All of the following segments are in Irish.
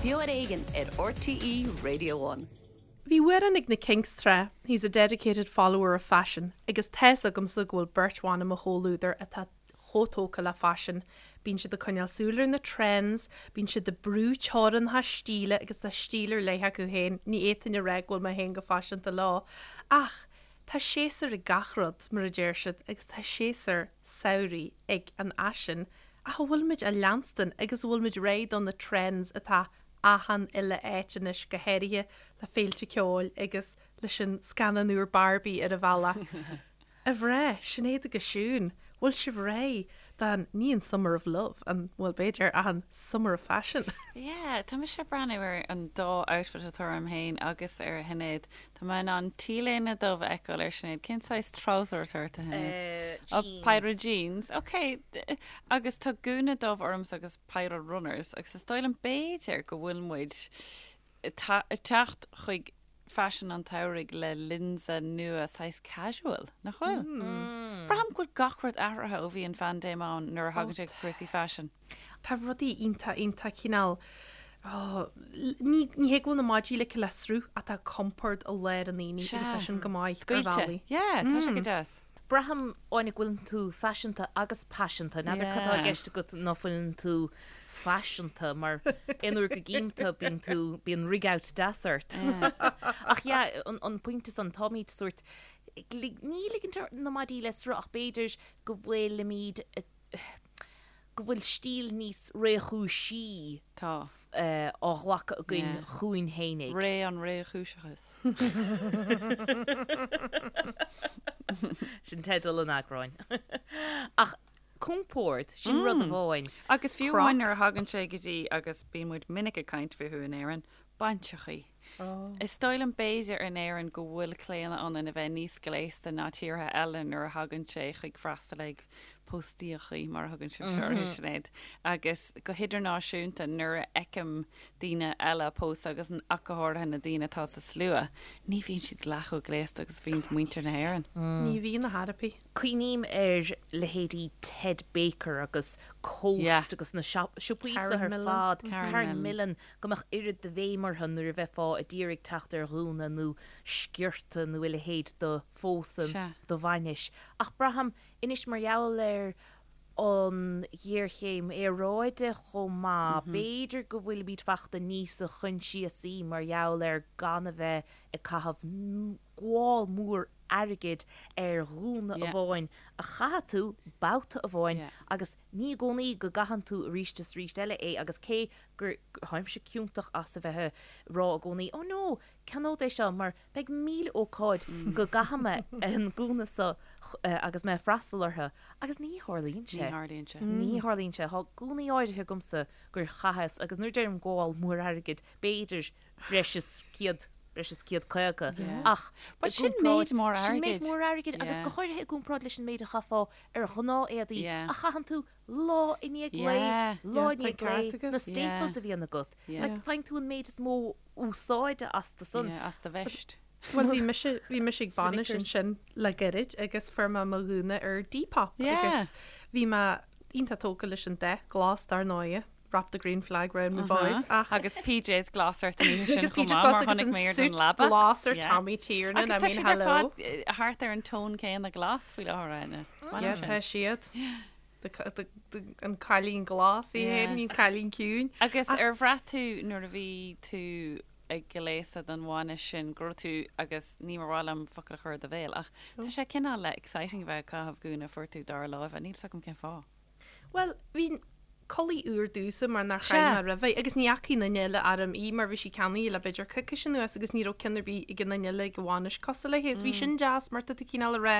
Beo ar Éigean ar RTÉ Radio One. Bhí amhrán ag na Kinks tráth, He's a dedicated follower of fashion, agus tá's agamsa go bhfuil beirt bhan i mo chomhluadar atá chomh tógtha le faisean. Bíonn siad ag coinneáil súil ar na trends, bíonn siad ag brú teorainneacha stíle agus tá stíl ar leith acu féin, ní fhéadfainn a rá go bhfuil mé féin go faiseanta leo, ach tá séasúr ag gach rud, mar a deir siad, agus tá séasúr samhraidh ag an fhaisean, ach an bhfuilimid á leanstan agus an bhfuilimid réidh do na trends atá achan uile áit anois, go háirithe le féilte ceoil agus leis an scannán úr Barbie ar an bhealach. A mhná, Sinéad agus Siún, bhfuil sibh réidh don, ní an Summer of Love, an, bhuel b'fhéidir, ach an Summer of Fashion? Yeah, tá mise ag breathnú ar an dá outfit atá orm féin agus ar Shinéad. Tá mé in ann T-léine dubh a fheiceáil ar Sinéad. Cén saghas trouser atá ort, a Shinéad? Jeans. Oh, péire jeans. Ok. Agus tá gúna dubh ormsa agus péire runners agus is dóigh liom b'fhéidir go bhfuil muid ag teacht chuig faisean an tsamhraidh le lionsa nua saghas casual, nach bhfuil? Braithim go bhfuil gach rud athraithe ó bhí an phaindéim ann nuair a thagann sé go cúrsaí faisin. Tá rudaí iontach, iontach cineál, oh, ní, ní hé go bhfuil na maidí ligthe le sruth ach tá compord i lár an aonaigh agus tá sin go maith ar Scaoilte. bhealaí. Yeah, tá sé go deas. Braithim, Áine, go bhfuileann tú faiseanta agus paiseanta. N'fheadar cad tá i gceist agat ná fuileann tú faiseanta, mar aon uair go gcím tú, bíonn tú, bíonn rig out deas ort. Ach yeah, an, an pointe san, táimid sórt, ní ligint na maidí le sruth ach b'fhéidir go bhfuilimid, go bhfuil stíl níos réchúisí Tá. á ghlacadh againn Yeah. chugainn fhéinig. Ré an réchúiseachais. Sin teideal an eagráin. Ach compord, sin rud amháin. Agus fiú amháin nuair a thagann sé go dtí, agus bíonn muid minic ag caint fúthu in Éirinn, bainseachaí. Is dóigh liom b'fhéidir in Éirinn go bhfuil claonadh ionainn a bheith níos gléasta ná tíortha eile nuair a thagann sé chuig freastal ag póstaíochaí, mar a thugann sibhse orthu, Sinéad. Agus go hidirnáisiúnta nuair a fheicim daoine eile ag pósadh agus ach go háirithe na daoine atá sa slua, ní bhíonn siad leath chomh gléasta agus a bhíonn muintir na hÉireann. Ní bhíonn a thairpí. Cuimhním ar leithéidí Ted Baker agus Coast agus na siopaí seo ar fad, Karen Millen, go mbeadh oiread de bhéim orthu nuair a bheifeá a d'iarraidh teacht ar ghúna nó sciorta nó a leithéid do phósadh, do bhainis. Ach braithim anois mar gheall ar an ghéarchéim aeráide chomh maith, b'fhéidir go bhfuilimid fachta níosa choinsiasaí mar gheall ar gan a bheith ag caitheamh gabháil mór airgid ar ghúna amháin a chaithfidh tú babhta amháin agus ní i gcónaí go gcaitheann tú arís is arís eile é agus cé gur tháimse ciontach as a bheith ag rá i gcónaí oh no, ceannód é seo mar beidh 1000 ócáid go gcaithfidh mé an gúna seo agus mé ag freastal orthu agus ní tharlaíonn sé. Ní tharlaíonn sé. Ní tharlaíonn sé. Tá gúnaí áirithe agamsa gur chaitheas agus nuair a deirim gabháil mór airgid b'fhéidir breis is 100, breis is 150 ach But sin méid mór airgid. Sin méid mór airgid agus go háirithe i gcomparáid leis an méid a chaithfeá ar ghnáth-éadaí a chaitheann tú lá i ndiaidh lae, lá i ndiaidh lae, na staples a bhíonn agat. Like, faigheann tú an méid is mó úsáide astu san. Yeah, as do veist. Bhuel, bhí mise, bhí mise ag bainis ansin le gairid agus fuair mé mo ghúna ar Depop agus bhí mé iontach tógtha leis an dath glas dar ndóighe, wrap the green flag round me boys, ach. Agus PJs glas ort an oíche sin Agus chomh PJs maith, glas mar agus chonaic an mé ar suit don leaba. glas ar Yeah. Tommy Tiernan, Agus I tá mean, siad ar hello. fad thart ar an tón céanna glas faoi láthair, Áine. Is maith Yeah, liom sin. tá siad. The, the, the, an cailín glas í Yeah. féin, an cailín ciúin. Agus ar bhraith tú nuair a bhí tú ag gléasadh don bhainis sin go raibh tú, agus ní mar mhaith liom focal a chur i do bhéal, ach tá sé cineál le exciting a bheith ag caitheamh gúna a fuair tú dara láimhe, níl 's agam cén fáth. Bhuel, bhí culaith úr domhsa mar nár chaith mé roimhe agus ní fhacaidh aon duine eile orm í mar bhí sí ceannaithe le b'fhéidir coicís anuas agus ní raibh ceann ar bith ag aon duine eile ag an bhainis cosúil léi agus bhí sin deas mar tá tú cineál ag rá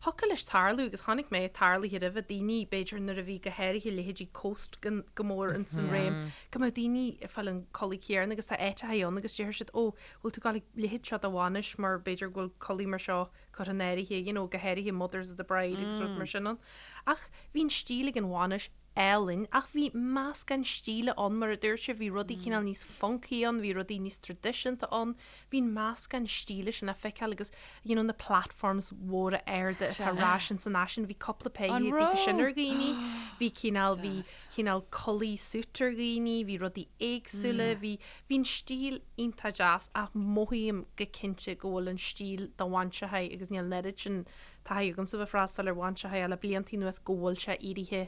thiocfadh leis tarlú agus chonaic mé tarlaithe roimhe daoine b'fhéidir nuair a bhí go háirithe leithéidí Coast go mór ins an réim go mbeadh daoine ag fáil an culaith chéanna agus tá áiteacha ann agus déarfaidh siad ó bhfuil tú ag gabháil ag leithéid seo do bhainis mar b'fhéidir go bhfuil culaith mar seo curtha in áirithe, you know, go háirithe mothers of the bride agus rud mar sin ann. Ach bhí an stíl ag an bhainis álainn ach bhí meascán stíle ann mar a dúirt sibh, bhí rudaí cineál níos funky ann, bhí rudaí níos traidisiúnta ann, bhí an meascán stíle sin le feiceáil agus you know na platforms mhóra arda atá ar ais ins an fhaisean, bhí cúpla péire díobh sin ar dhaoine, bhí cineál, bhí cineál culaith suit ar dhaoine, bhí rudaí éagsúla, bhí, bhí an stíl iontach deas ach mothaím go cinnte go bhfuil an stíl do bhainseachaí agus níl an oiread sin taithí agamsa bheith freastal ar bhainseachaí le bliantaí anuas go bhfuil sé éirithe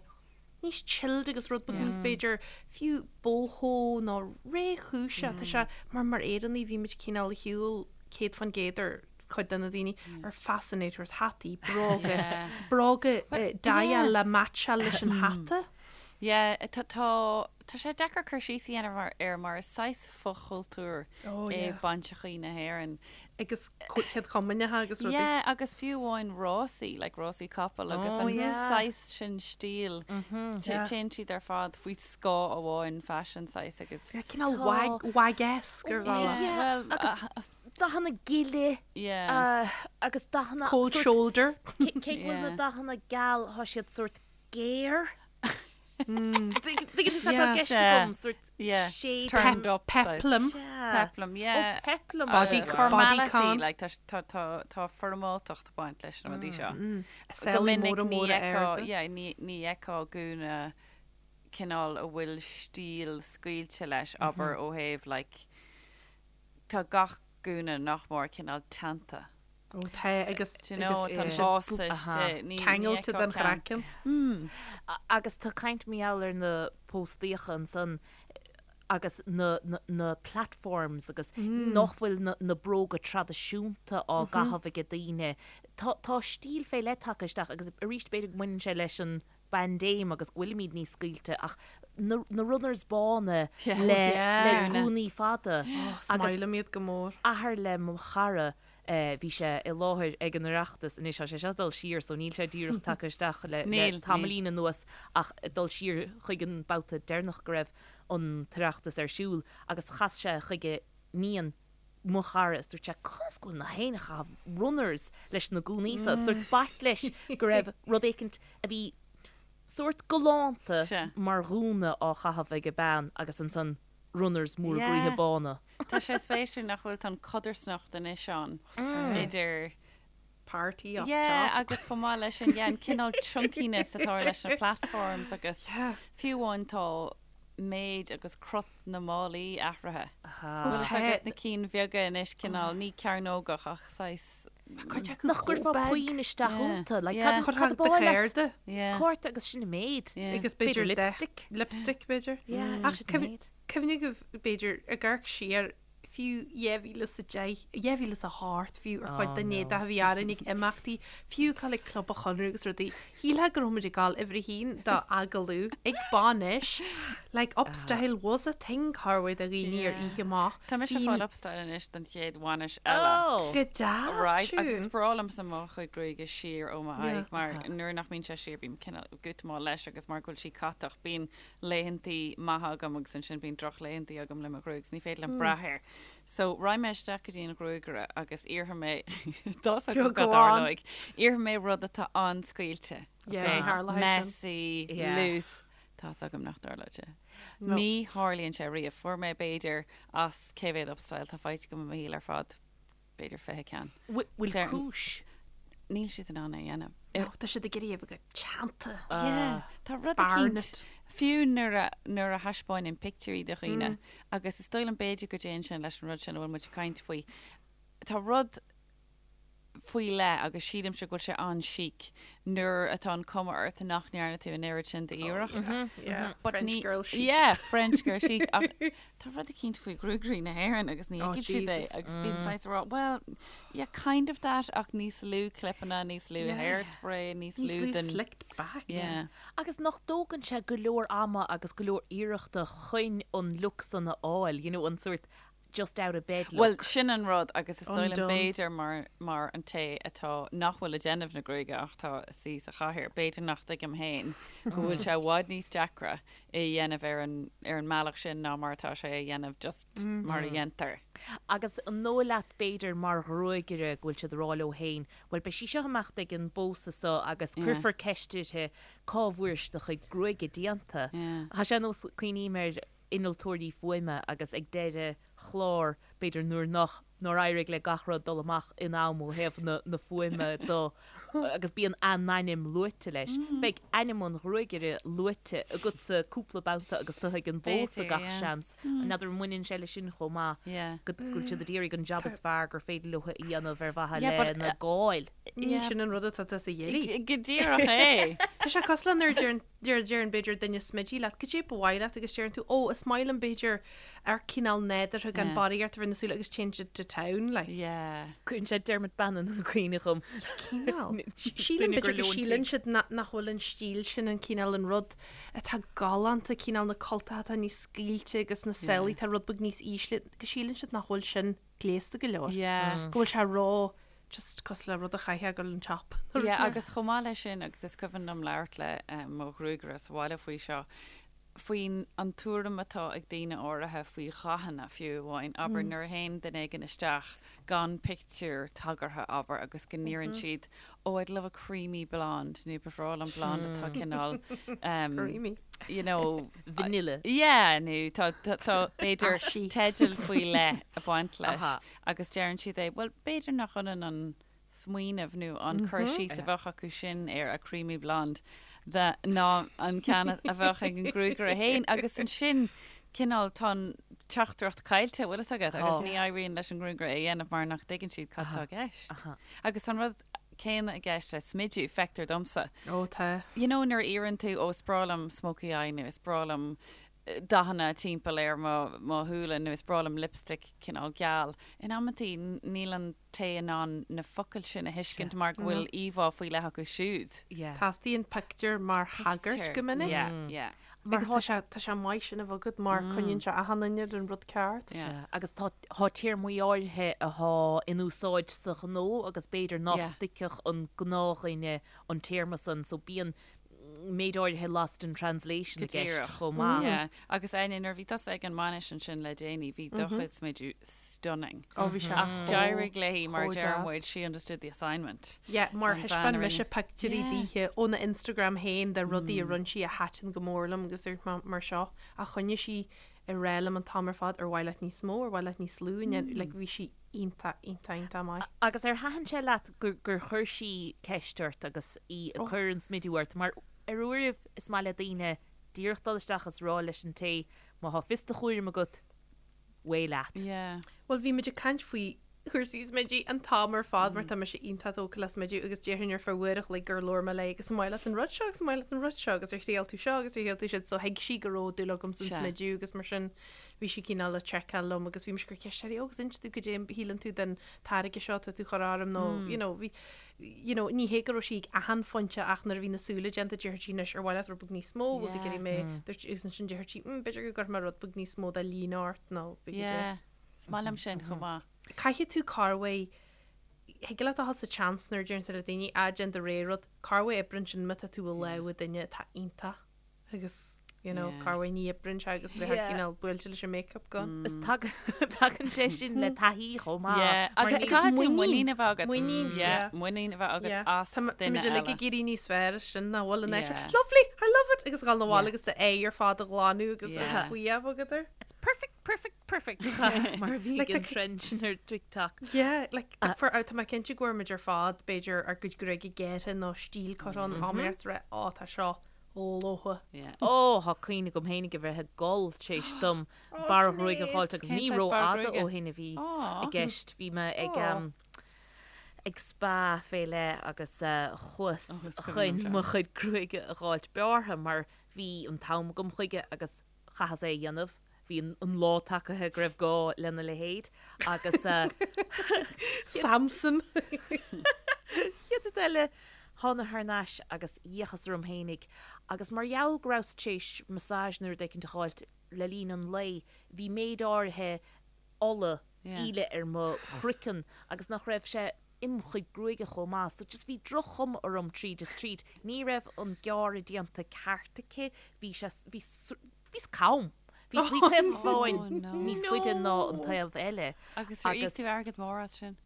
níos chilled agus rud beag níos b'fhéidir fiú boho nó réchúiseach. Tá sé mar mar Éireannaigh bhí muid cineál ar shiúl 100% ar cuid de na daoine ar fascinators, hataí, bróga, bróga daite le meaitseáil leis an hata. Yeah, tá, tá, tá sé deacair cur síos a dhéanamh air mar is saghas fochultúr é bainseachaí na hÉireann. Agus céad chomaoineacha agus rudaí. Yeah, agus fiú amháin rásaí, like rásaí capall agus an saghas sin stíl, téann siad ar fad faoi scáth amháin faisean saghas agus. Yeah, cineál wag, wag-esque ar bhealach. Yeah, well, agus dathanna gile yeah. agus dathanna Cold shoulder. Cé go bhfuil na dathanna geal, tá siad sórt géar. Tuigeann tú cad tá i gceist agam, sórt shade. Turned up. Peplum. Peplum, yeah. Oh, peplum. Body, Formality, like, tá, tá, tá, tá foirmeáltacht ag baint leis na rudaí seo. Go minic ní fheicfeá, yeah, ní, ní fheicfeá gúna cineál a bhfuil stíl scaoilte leis, abair ó thaobh, like, tá gach gúna nach mór cineál teannta. Ó tá agus Do you know, tá an básta istigh. Ní ceangailte den chraiceann. Agus tá caint mar gheall ar na póstaíocha ansan agus na na platforms agus nach bhfuil na na bróga traidisiúnta á gcaitheamh ag daoine. Tá tá stíl fé leith tagtha isteach agus arís b'fhéidir go mbaineann sé leis an bpaindéim agus go bhfuilimid níos scaoilte ach na na runners bána le le gúnaí fada agus Is maith liom iad go mór. Athair le mo chara Bhí sé i láthair ag an Oireachtas, anois tá sé seo ag dul siar so níl sé díreach tagtha isteach le tamaillín anuas ach ag dul siar chuig an babhta deireanach go raibh an tOireachtas ar siúl agus chas sé chuige níon mo chara is dúirt sé conas go bhfuil na héinne ag caitheamh runners leis na gúnaí so, sórt b'ait leis go raibh rud éicint a bhí sórt galánta mar ghúna á chaitheamh ag bean agus ansan runners móra groíthe bána. Tá sé spéisiúil nach bhfuil tá an codarsnacht anois ann idir party up Yeah, top. agus chomh maith leis sin, yeah, an cineál chunkiness atá leis na platforms agus fiú amháin tá méid agus crot na málaí athraithe. Bhfuil fhios agat na cinn bheaga anois cineál ní cearnógach ach saghas Cuid acu Nach chomh gcuirfeá beag. puinn isteach iontu, like, Yeah. cad cad Cuirfeá ab do áil leat? chárta. Yeah. Cárta agus sin an méid. Yeah. Agus b'fhéidir B'fhéidir lipstick. Lipstick b'fhéidir. Yeah, Ach sin an méid. Cuimhnigh b'fhéidir ag amharc siar fiú 2010, 2008 fiú ar chuid den éadach a bhí orainn ag imeachtaí, fiú ag dul ag Club an Chonradh agus rudaí. Shílfeá go raibh muid ag dul uimhir a haon do agallamh ag bainis. Like upstyle was a thing corruair do dhaoine ar oíche amach. Tá mise ag fáil upstyle anois don chéad bhainis eile. Oh! Go deas, Right, agus Siún. is breá liomsa mo chuid gruaige siar ó m'aghaidh mar nuair nach mbíonn sé siar bím cineál gútamáil leis agus mar go bhfuil sí catach bíonn laethantaí maithe agam agus ansin bíonn drochlaethantaí agam le mo ghruaig 's ní féidir liom brath air. So raghaidh mé isteach go dtí an ghruagaire agus iarrfaidh mé tá 's agam Go cad on. tharlóidh. Iarrfaidh mé rud atá an-scaoilte. Yeah, Okay? tharlóidh sin. Messy, Yeah. loose. Tá 's agam nach dtarlóidh sé. No. Ní tharlaíonn sé riamh. Fuair mé b'fhéidir as cé mhéad upstyle tá faighte agam i mo shaol ar fad. b'fhéidir 20 ceann. Bhfuil Deir- cúis? Níl siad in ann é a dhéanamh. Ó, tá siad ag iarraidh a bheith go teannta. Yeah, tá rud Barnet. eicínt, fiú nuair a, nuair a thaispeáinim pictiúirí do dhaoine, agus is dóigh liom b'fhéidir go dtéann sin leis an rud sin a bhfuil muid ag caint faoi, tá rud faoi leith agus sílimse go bhfuil sé an-chic nuair atá an cuma ort nach ndearna tú an oiread sin d'iarracht. Yeah, But French ní- girl chic. Yeah, French girl chic. Ach tá rud eicínt faoi ghruagairí na hÉireann agus ní Oh, thuigfidh siad é Jesus. agus bím saghas ag rá, well, yeah, kind of that ach níos lú clipeanna, níos lú Yeah. hairspray, níos Níos lú lú den... slicked back. Yeah. Agus nach dtógann sé go leor ama agus go leor iarrachta chun an look san a fháil, you know, an sórt. just out of bed look. Bhuel, sin an rud agus is dóigh liom b'fhéidir mar mar an té atá nach bhfuil ag déanamh na gruaige ach atá ag suí sa chathaoir, b'fhéidir nach dtuigim féin go bhfuil sé i bhfad níos deacra é a dhéanamh ar an ar an mbealach sin ná mar atá sé a dhéanamh just mar a dhéantar. Agus an dóigh leat b'fhéidir mar ghruagaire go bhfuil siad ag rá leo féin, bhuel beidh sí seo ag imeacht ag an bpósadh seo agus cuirfear ceist uirthi cá bhfuair sí do chuid gruaige déanta. Tá sé ar nós, cuimhním ar innealtóirí fuaime agus ag deireadh chlár, b'fhéidir nuair nach, nár éirigh le gach rud dul amach in am ó thaobh na, na fuaime do agus bíonn a n-ainm luaite leis. Beidh ainm an ghruagaire luaite agatsa cúpla babhta agus tú ag an bpósadh gach seans. N'fheadar an mbaineann sé leis sin chomh maith, go bhfuil siad ag iarraidh an jab is fearr gur féidir leo a dhéanamh ar mhaithe lena gcáil. Sin an rud atá tusa a iarraidh. Go díreach é. Tá sé cosúil le nuair a deireann deir deireann b'fhéidir duine smididh leat, goidé ba mhaith leat agus deireann tú, ó, is maith liom b'fhéidir ar cineál nádúrtha gan barraíocht a bheith ar na súile agus téann siad to town, like. Yeah. Cuireann sé Dermot Bannon i gcuimhne dhom. Cineál. Sílim Duine gur b'fhéidir go leon síleann tí. siad nach bhfuil an stíl sin an cineál an rud atá galánta, cineál na cultacha atá níos scaoilte agus na sálaí atá rud beag níos ísle, go síleann siad nach bhfuil sin gléasta go leor. Yeah. Go bhfuil sé ró just cosúil le rud a chaithfeá ag dul an shop. Yeah, agus chomh maith leis sin, agus is cuimhin liom labhairt le mo ghruagaire sa bhaile faoi seo, faoin an tuairim atá ag daoine áirithe faoi dhathanna fiú amháin. Abair nuair a théann duine éigin isteach gan pictiúr tagartha, abair, agus go n-iarrann siad, oh, I'd love a creamy blonde, nó ba bhreá liom blonde atá cineál, Creamy. you know, Vanilla. Yeah, nó tá, tá, tá, b'fhéidir Ashy. teideal faoi leith ag baint leis. Agus deireann siad é, bhuel, b'fhéidir nach ionann an smaoineamh nó an cur síos a bheadh acu sin ar a creamy blonde the, ná an ceann a bheadh ag an gruagaire féin. Agus ansin, cineál, tá an teachtaireacht caillte, bhfuil fhios agat, agus ní éiríonn leis an ngruagaire é a dhéanamh mar nach dtuigeann siad cad tá i gceist. Agus tá an rud céanna i gceist le smidiú, feictear domsa. Ó, tá. You know, nuair a iarrann tú, ó, is breá liom smoky eye nó is breá liom dathanna timpeall ar mo mo shúile nó is breá liom lipstick cineál geal. In amantaí níl an té in ann na focail sin a thuiscint mar go bhfuil íomhá faoi leith acu siúd. Teastaíonn pictiúr mar thagairt go minic. Yeah, yeah. Agus tá sé tá sé maith sin a bheith agat mar coinníonn sé achan duine ar an rud ceart. Sea, agus tá tá téarmaí áirithe athá in úsáid sa ghnó agus b'fhéidir nach dtuigfeadh an gnáthdhuine an téarma san so bíonn méid áirithe lost in translation i gceist chomh maith. Yeah. Agus Áine, nuair a bhí tusa ag an bhainis ansin le déanaí, bhí do chuid smidiú stunning. Ó, bhí sé Ach d'éirigh léi, mar chomh a deir deas. muid, she understood the assignment. Yeah, mar An bhean thaispeáin a mise rinne. pictiúirí Yeah. daoithe óna Instagram féin de rudaí a rinne sí a thaitin go mór liom agus dúirt mé mar seo ach choinnigh sí ag rá liom an t-am ar fad ar mhaith leat níos mó, ar mhaith leat níos lú, and then, like, bhí sí iontach, iontach, iontach maith. Agus ar thaitin sé leat gur gur chuir sí ceist ort agus í ag cur an smidiú ort? Mar ar uairibh is maith le daoine díreach dul isteach is rá leis an té má thá fios do chúraim agat, away leat. Yeah. Bhuel bhí muid ag caint faoi chúrsaí smididh an t-am ar fad mar tá mise iontach tógtha le smideadh agus déarfainn ar feadh uair a chloig gur labhair mé léi agus an maith leat an rud seo agus an maith leat an rud seo agus ar thriail tú seo agus ar thriail tú siúd so thuig sí go raibh dúil agam san smideadh agus mar sin bhí sí cineál ag seiceáil liom agus bhí mise ag cur ceist uirthi, ó agus inis domh goidé a shíleann tú den táirge seo atá tú a chur orm nó you know bhí you know ní hé go raibh sí ag achan phointe ach nuair a bhí na súile déanta déarfadh sí anois ar mhaith leat rud beag níos mó bhfuil tú ag iarraidh mé dúirt agus ansin déarfadh sí mm b'fhéidir go gcuirfidh mé rud beag níos mó de líne ort nó b'fhéidir Yeah. Is maith liom sin chomh maith. Caithfidh tú corruair thig leat a dhul sa tseans nuair a deireann tú le daoine, ah déan do rogha rud, corruair oibreann sin má tá tú i lámha duine atá iontach agus you know corruair ní oibreann sé agus bheifeá cineál buailte leis an makeup go. Is tagann sé sin le taithí chomh maith. Yeah, agus caithfidh tú muinín a bheith agat. Muinín, yeah. Muinín a bheith agat as Tá duine muid eile. uilig ag éirí níos fearr as sin nach bhfuil an Yeah. Lovely, I love it! Agus dhul 'na bhaile agus d'aghaidh ar fad a ghlanadh agus Yeah. faoi a bheith agat air. It's perfect, perfect, perfect mar a bhí ag an trend sin ar TikTok. Yeah, like, for, tá mé cinnte go bhfuair muid ar fad, b'fhéidir, ár gcuid gruaige gearrtha nó stíl curtha ann, am ar rá, ó, tá seo lofa. Yeah. Ó, tá cuimhne agam féinig a bheith ag gol tar éis dom barr ghruaige a dh'fháilt agus Cén ní saghas barr rófhada gruaige? ó shin a bhí i gceist. Bhí mé ag ag spa fé leith agus chuas Ó, is cuimhin liom chun seo. mo chuid gruaige a dh'fháilt bearrtha mar bhí an t-am agam chuige agus chaitheas é a dhéanamh. Bhí an lá tagaithe go raibh gá lena leithéid agus. Samson! Chéad rud eile, thána thar n-ais agus d'fhéachas orm fhéinig agus mar gheall go rabhas tar éis massage nó rud éicint a dh'fháilt le linn an lae, bhí méid áirithe. ola íle ar mo chraiceann agus nach raibh sé im chuid gruaige chomh maith so just bhí droch-chuma orm tríd is tríd. Ní raibh an gearradh déanta ceart aici, bhí sé, bhí, bhíos cam. Bhí, bhí taobh amháin níos faide ná an taobh eile. Agus ar íoc tú airgead mór as sin?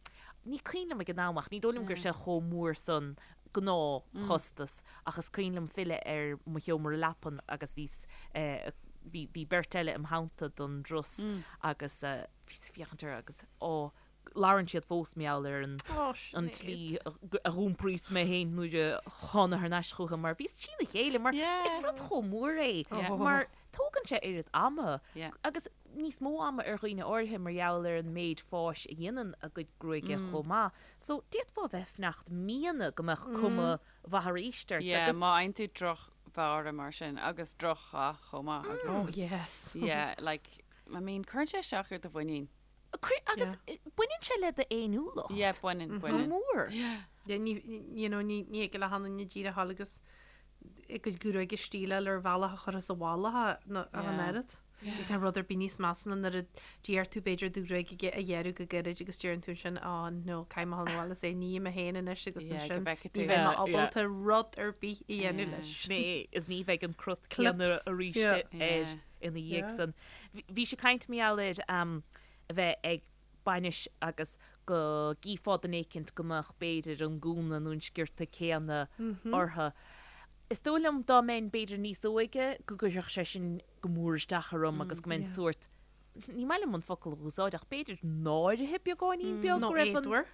Ní cuimhin liom ag an am ach ní dóigh liom go raibh sé chomh mór san gnáthchostas ach is cuimhin liom filleadh ar mo sheomra leapan agus bhíos, bhí, bhí beirt eile im theannta don dturas agus bhíos ag féachaint orthu agus á labhrann siad fós mar gheall ar an an tslí a dh'iompraíos mé féin nuair a thána thar n-ais chucu mar bhíos trína chéile mar is rud chomh mór é mar tógann sé oiread ama agus níos mó ama ar dhaoine áirithe mar gheall ar an méid fáis a dhéanann a gcuid gruaige chomh maith. So d'fhéadfá a bheith ag fanacht míonna go mbeadh cuma mhaith arís ort Yeah, agus. má fhaigheann tú drochbhearradh mar sin agus drochdhath chomh maith agus. Oh yes. Yeah, like, I mean, cuireann sé isteach ar do mhuinín. Cuir, agus baineann sé le d'fhéiniúlacht. Yeah, baineann, baineann. Go mór. Yeah, ní, you know, ní, ní thig le haon duine díreach a ghabháil agus a gcuid gruaige a stíleáil ar bhealach a chuirfeas i bhfolach é ach an oiread. Níl rud ar bith níos measa ná nuair a d'iarr tú b'fhéidir do ghruaig a ghearradh go gairid agus deireann tú ansin á no caithfidh mé a ghabháil abhaile is é a ní mé féin anois agus ansin ní bheidh mé ábalta rud ar bith a dhéanamh leis. Sin é, is ní bheidh an crot céanna arís air ina dhiaidh san. Bhí sé ag caint mar gheall ar a bheith ag bainis agus go gcífeá duine éicint go mbeadh b'fhéidir an gúna nó an sciorta céanna orthu. Is dóigh liom dá mbeinn b'fhéidir níos óige go gcuirfeadh sé sin go mór isteach orm agus go mbeinn sórt, ní maith liom an focal a úsáid ach b'fhéidir náirithe beagáinín beag go raibh an. Nó éadmhar.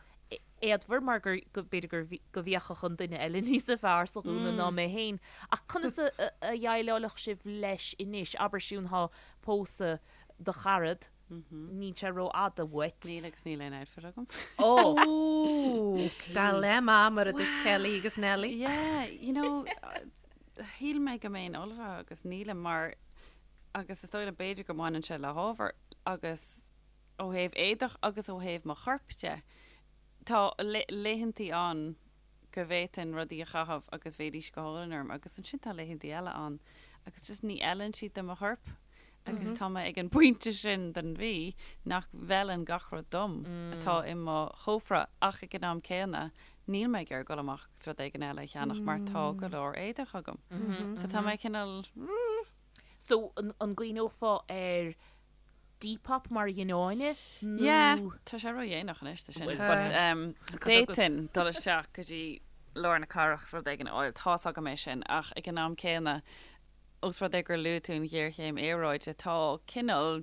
Éadmhar mar gur, go, b'fhéidir gur, go bhféachfadh an duine eile níos fearr sa ghúna ná mé féin. Ach conas a, a dhéileálfadh sibh leis anois? Abair Siún thá pósadh do charad, níl sé rófhada uait. Níl agus níl aon outfit agam. Ó! Dilemma mar a dúirt Kelly agus Nelly. Yeah, you know, shíl mé go mbeinn ullmhaithe agus nílim mar agus is dóigh liom b'fhéidir go mbaineann sé le hábhar agus ó thaobh éadach agus ó thaobh mo choirp de. Tá laethantaí ann go bhféadfainn rudaí a chaitheamh agus bheidís go hálainn orm agus ansin tá laethantaí eile ann agus just ní fheileann siad do mo chorp agus tá mé ag an bpointe sin den mhí nach bhfeileann gach rud dom atá i mo chófra ach ag an am céanna níl mé ag iarraidh dul amach agus rud éigin eile a cheannach mar tá go leor éadach agam. So tá mé cineál. So an gcuimhneofá ar Depop mar a dhein Áine nó. Yeah, tá sé ródhéanach anois do sin. But d'fhéadfainn dul isteach go dtí lár na cathrach is rud éigin a fháil, tá's agam é sin, ach ag an am céanna, ós rud é gur luaigh tú an ghéarchéim aeráide, tá cineál,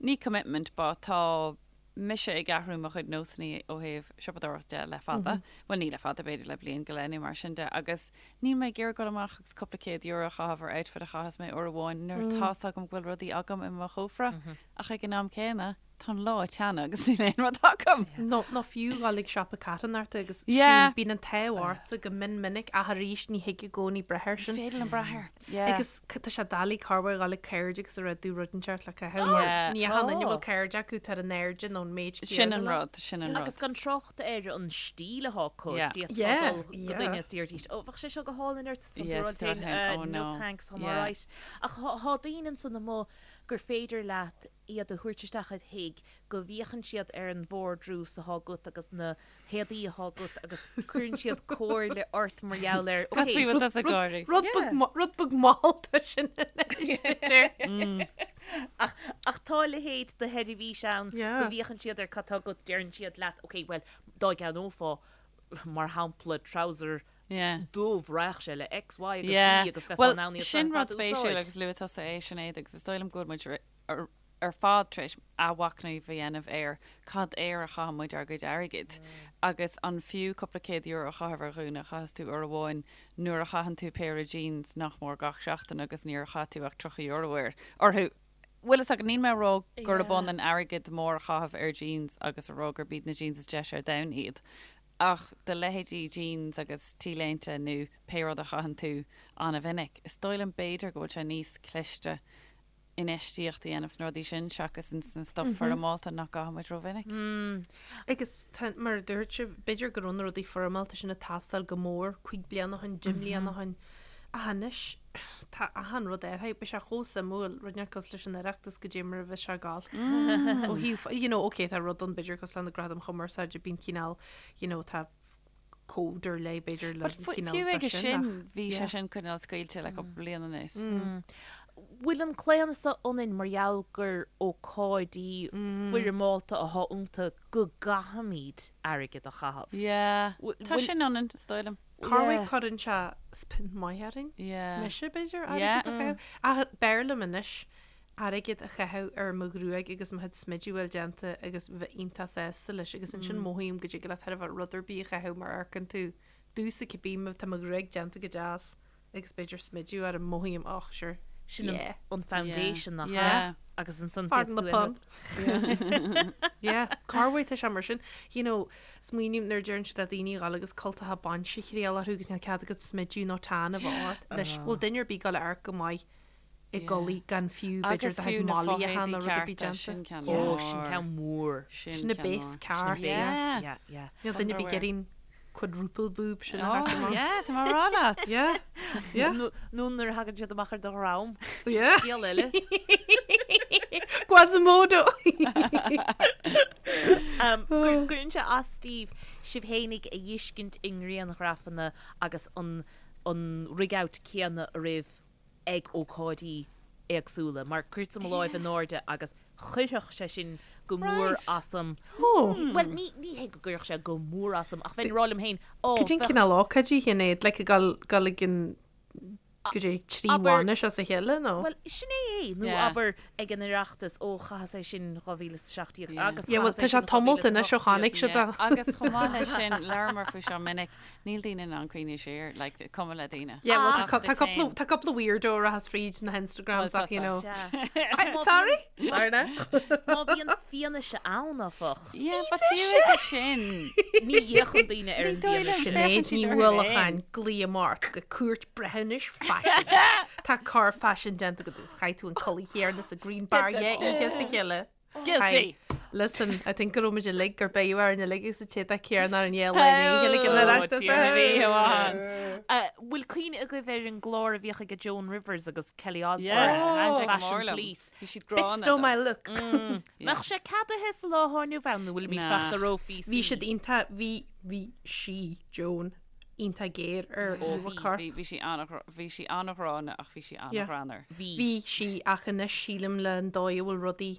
ní commitment, but tá mise ag athrú mo chuid nósanna ó thaobh siopadóireacht de le fada, bhuel ní le fada, b'fhéidir le bliain go leith nó mar sin de, agus níl mé ag iarraidh dul amach agus cúpla céad euro a chaitheamh ar outfit a chaitheas mé uair amháin nuair tá's agam go bhfuil rudaí agam i mo chófra, ach ag an am céanna, tá an lá ag teannadh agus níl aon rud agam. Nó, nó fiú dhul ag siopa carthanachta agus Yeah. bíonn an t-ádh ortsa go mion minic ach arís ní thig i gcónaí breith air sin. Ní féidir liom brath air. Yeah. Agus tá sé doiligh corruair dhul ag cairde agus a rá dú rud inteacht le caitheamh mar Yeah. ní achan duine a bhfuil cairde acu tá ar an airde nó an méid Sin an rud, sin an rud. Agus gan trácht ar an stíl atá acu, Yeah. d'fhéadfá Yeah, dul go yeah. duine is deirdís, ó bheadh sé seo go hálainn ort, is Yeah, tú tá féin, féin, "Uh, oh no no. thanks, I'm Yeah. alright. Ach thá thá daoine ansan amuigh gur féidir leat iad a thabhairt isteach id thigh, go bhféachann siad ar an vardrús atá agat agus na héadaí atá agat agus cuireann siad comhairle ort mar gheall ar, Cad ok, faoi bhfuil tusa ag gáirí? Rud beag ma- rud beag mallta sin anois, b'fhéidir. Ach, ach tá a leithéid de sheirbhís ann Yeah. go bhféachann siad ar cad tá agat, deireann siad leat, ok, bhuel, dá gceannófá, mar shampla, trouser Yeah. dubh, raghadh sé le X, Y agus Yeah. Z agus bheifeá Well, in ann iad sin ar rud fad a spéisiúil úsáid. agus luaigh tusa é, Sinéad, agus is dóigh liom go bhfuil muid ar ar fad tar éis athmhachnamh a dhéanamh ar cad air a chaitheann muid ár gcuid airgid agus an fiú cúpla céad euro a chaitheamh ar ghúna a chaitheas tú uair amháin nuair a chaitheann tú péire jeans nach mór gach seachtain agus níor chaith tú ach 30 euro air orthu. Bhfuil fhios agat, níl mé ag rá gurb ionann airgead mór a chaitheamh ar jeans agus a rá gurb iad na jeans is deise ar domhan iad ach do leithéidí jeans agus t-léinte nó pé rud a chaitheann tú an-mhinic, is dóigh liom b'fhéidir go bhfuil sé níos cliste infheistíocht a dhéanamh sna rudaí sin seachas ins an stuff foirmeálta nach gcaitheann muid rómhinic. Agus tá, mar a dúirt sibh, b'fhéidir go raibh na rudaí foirmeálta sin ag teastáil go mór cúig bliana ó shin, deich mbliana ó shin. Ach anois, tá achan rud athraithe. Beidh sé chomh suimiúil, rud inteacht cosúil leis an Oireachtas goidé mar a bheas sé ag gabháil. Ó thaobh, you know, ok, tá rud ann b'fhéidir cosúil le na Gradaim Chumarsáide, bíonn cineál, you know, tá cód ar leith b'fhéidir le But fu- cineál fiú de aige sin, sin, ach bhí sé yeah. sin cineál scaoilte le cúpla bliain anuas. Bhfuil an claonadh so ionainn mar gheall gur ócáidí foirmeálta atá iontu go gcaithfimid airgead a chaitheamh? Yeah. Tá Bhfuil- sin ionainn, is dóigh liom. Corruair cuireann sé spin maith orainn. Yeah. Mise, b'fhéidir, Yeah. airgead a chaitheamh. Ach b'fhearr liom anois airgead a chaitheamh ar mo ghruaig agus mo chuid smididh a bhfuil déanta agus bheith iontach sásta leis agus ansin mothaím go dtig leat thar a bheith rud ar bith a chaitheamh mar amharcann tú domhsa cibé má tá mo ghruaig déanta go deas agus b'fhéidir smideadh orm mothaím och sure Sin an yeah. an foundation nach ea? Yeah. Agus ansan Pardon féadfaidh the tú aon pun. rud. Yeah, corruair tá sé mar sin. You know, smaoiním nuair a deireann siad le daoine a dhul agus cultacha bainse a thriail orthu agus níl cead agat smideadh nó tan a bheith ort. Anois, bhfuil duine ar bith ag dul a amharc go maith i gculaith gan fiú b'fhéidir Agus do fiú chuid na malaí a fo-éadaí theann nó rud ar bith cearta, déanta. sin ceann Ó, mór. sin ceann mór. Sin Sin na ceann base mór. ceart. Sin base, Yeah. yeah, yeah. Níl duine ar bith ag Underwear. iarraidh quadruple boob sin a theacht Oh, amach. yeah, tá mé ag rá leat. Yeah, yeah. Nó nó nuair a thagann siad amach ar do dhroim. Yeah. Scéal eile. Quasimodo! Um, gur- Cuireann sé as daoibh sibh fhéinig a fheiscint i ngrianghrafanna agus an an rig-out céanna oraibh ag ócáidí éagsúla, mar cuirtear mo láimh in airde agus chuirfeadh sé sin go mór asam. Bhuel, ní ní hé go gcuirfeadh sé go mór asam, ach bheinn ag rá liom féin, ó, Cad é an bheadh. cineál ócáidí, Shinéad? Like ag dul dul ag an go dtí 3 Abair. bhainis as a chéile, nó? Bhuel, sin é é, nó Yeah. abair ag an Oireachtas, ó, chaitheas é sin 2017 Yeah. agus Yeah, well, chaitheas é tá sé sin tamalt anois ó 2018. chonaic siad Yeah. é. Agus chomh maith leis sin, labhramar faoi seo minic, Níl daoine in ann cuimhniú siar, like, cuma le daoine. Yeah, well, Ach tá the cúpla same. tá cúpla weirdo a rachas fríd na hInstagrams Well, ach, you know. Sea. Sorry! Sorry now. Má bhíonn fianaise ann, áfach. Yeah, but fiú aige sin. Ní fhéachann daoine ar an Ní dóigh liom bhfianaise. féachann Sinéad siad Ní orthu Uallacháin, féin. glaoigh ort go cúirt breithiúnais faisin. Tá coir faisin déanta agat agus chaith tú an culaith chéanna sa Green Bar dhá oíche as a chéile. Guilty! Listen, I think go raibh muid uilig gur beidh orainn uilig agus an t-éadach céanna ar an dhéal le chéile ag an Oireachtas. Bhfuil cuimhne agaibh ar an gclár a bhíodh ag Joan Rivers agus Kelly Osbourne, Yeah, Fashion Police? Bhí siad Bitch gránna stole my look. Mbeadh sé ceadaithe sa lá atá inniu ann nó bhfuilimid Nah. fachta ró-PC? Bhí siad iontach, bhí, bhí sí, Joan, iontach géar ar íomhá coirp. Bhí, bhí sí an, bhí sí an-ghránna ach bhí sí an-ghreannmhar. Bhí. Bhí sí ach anois sílim le an dóigh a bhfuil rudaí,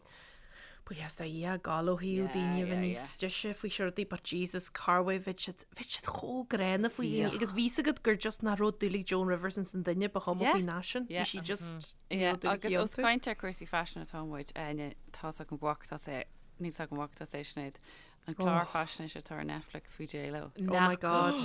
buíochas do Dhia, ag gabháil ó thaobh daoine a bheith níos deise faoi seo rudaí but Jesus corruair bheadh siad, bheadh siad chomh gránna faoi dhaoine agus bhí 's agat gur just nach raibh dúil ag Joan Rivers ins an duine ba chuma faoin fhaisean, bhí sí just, ní raibh dúil aici Agus os iontu. caint ar cúrsaí faisin atá muid, Áine, tá's agam go bhfaca tusa é, níl 's agam an bhfaca tusa é Sinéad, An clár faisnéise atá ar Netflix faoi J-Lo. Oh my God.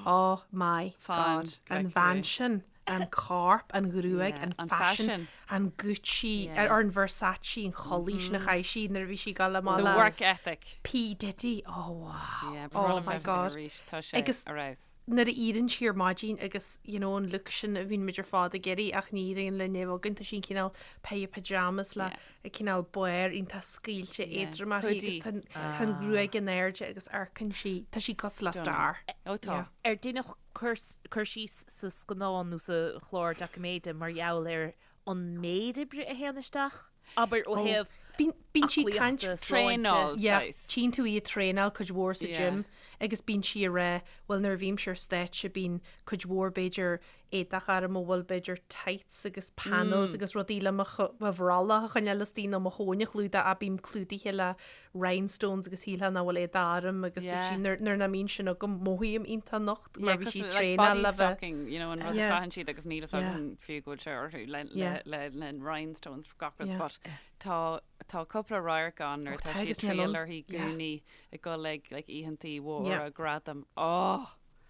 Oh my God. An bhean sin, an corp, an ghruaig, an faisean, an Gucci, or an Versace, an chulaith sin a chaith sí nuair a bhí sí ag dul amach The le work ethic. P Diddy. Oh wow. Yeah, Oh my God. Arís, tá sé Agus ar fheabhas. nuair a éiríonn sí ar maidin agus you know an look sin a bhíonn muid ar fad ag iarraidh ach ní éiríonn linn é a bheith againn, tá sí an cineál pair of pyjamas le a cineál barr iontach scaoilte éadrom uirthi agus tá tá an ghruaig in airde agus amharcann sí, tá sí cosúil le star. Ó tá. Ar deineadh cur cur síos sa scannán nó sa chlár doiciméide mar gheall ar an méid oibre a théann isteach? Abair ó thaobh Bíonn bíonn sí ag caint aclaíochta, sláinte. Traenáil, Yeah, saghas. tchíonn tú í ag traenáil cuid mhór sa Yeah. gym agus bíonn sí ag rá, bhuel nuair a bhímse ar stáitse bíonn cuid mhór b'fhéidir éadach orm a bhfuil b'fhéidir tights agus panels agus rudaí le mo mo bhrollach a choinneáil istigh nó mo thóin a chlúdach ach bím clúdaithe le rhinestones agus shílfeá nach bhfuil éadach orm agus dúirt sí Yeah. nuair nuair nach mbíonn sin agam mothaím iontach nocht Yeah, mar bhí sí cosúil ag like traenáil body le bheith stocking, you know, an rud a Yeah. chaitheann siad agus níl fhios Yeah. agam fiú go bhfuil sé orthu le Yeah. le le le rhinestones gach rud Yeah. but tá tá cúpla radharc ann nuair Oh, atá tá sí ag agus níl triail ann. uirthi Yeah. gúnaí ag dul ag like oícheantaí mhóra Yeah. gradaim. Oh!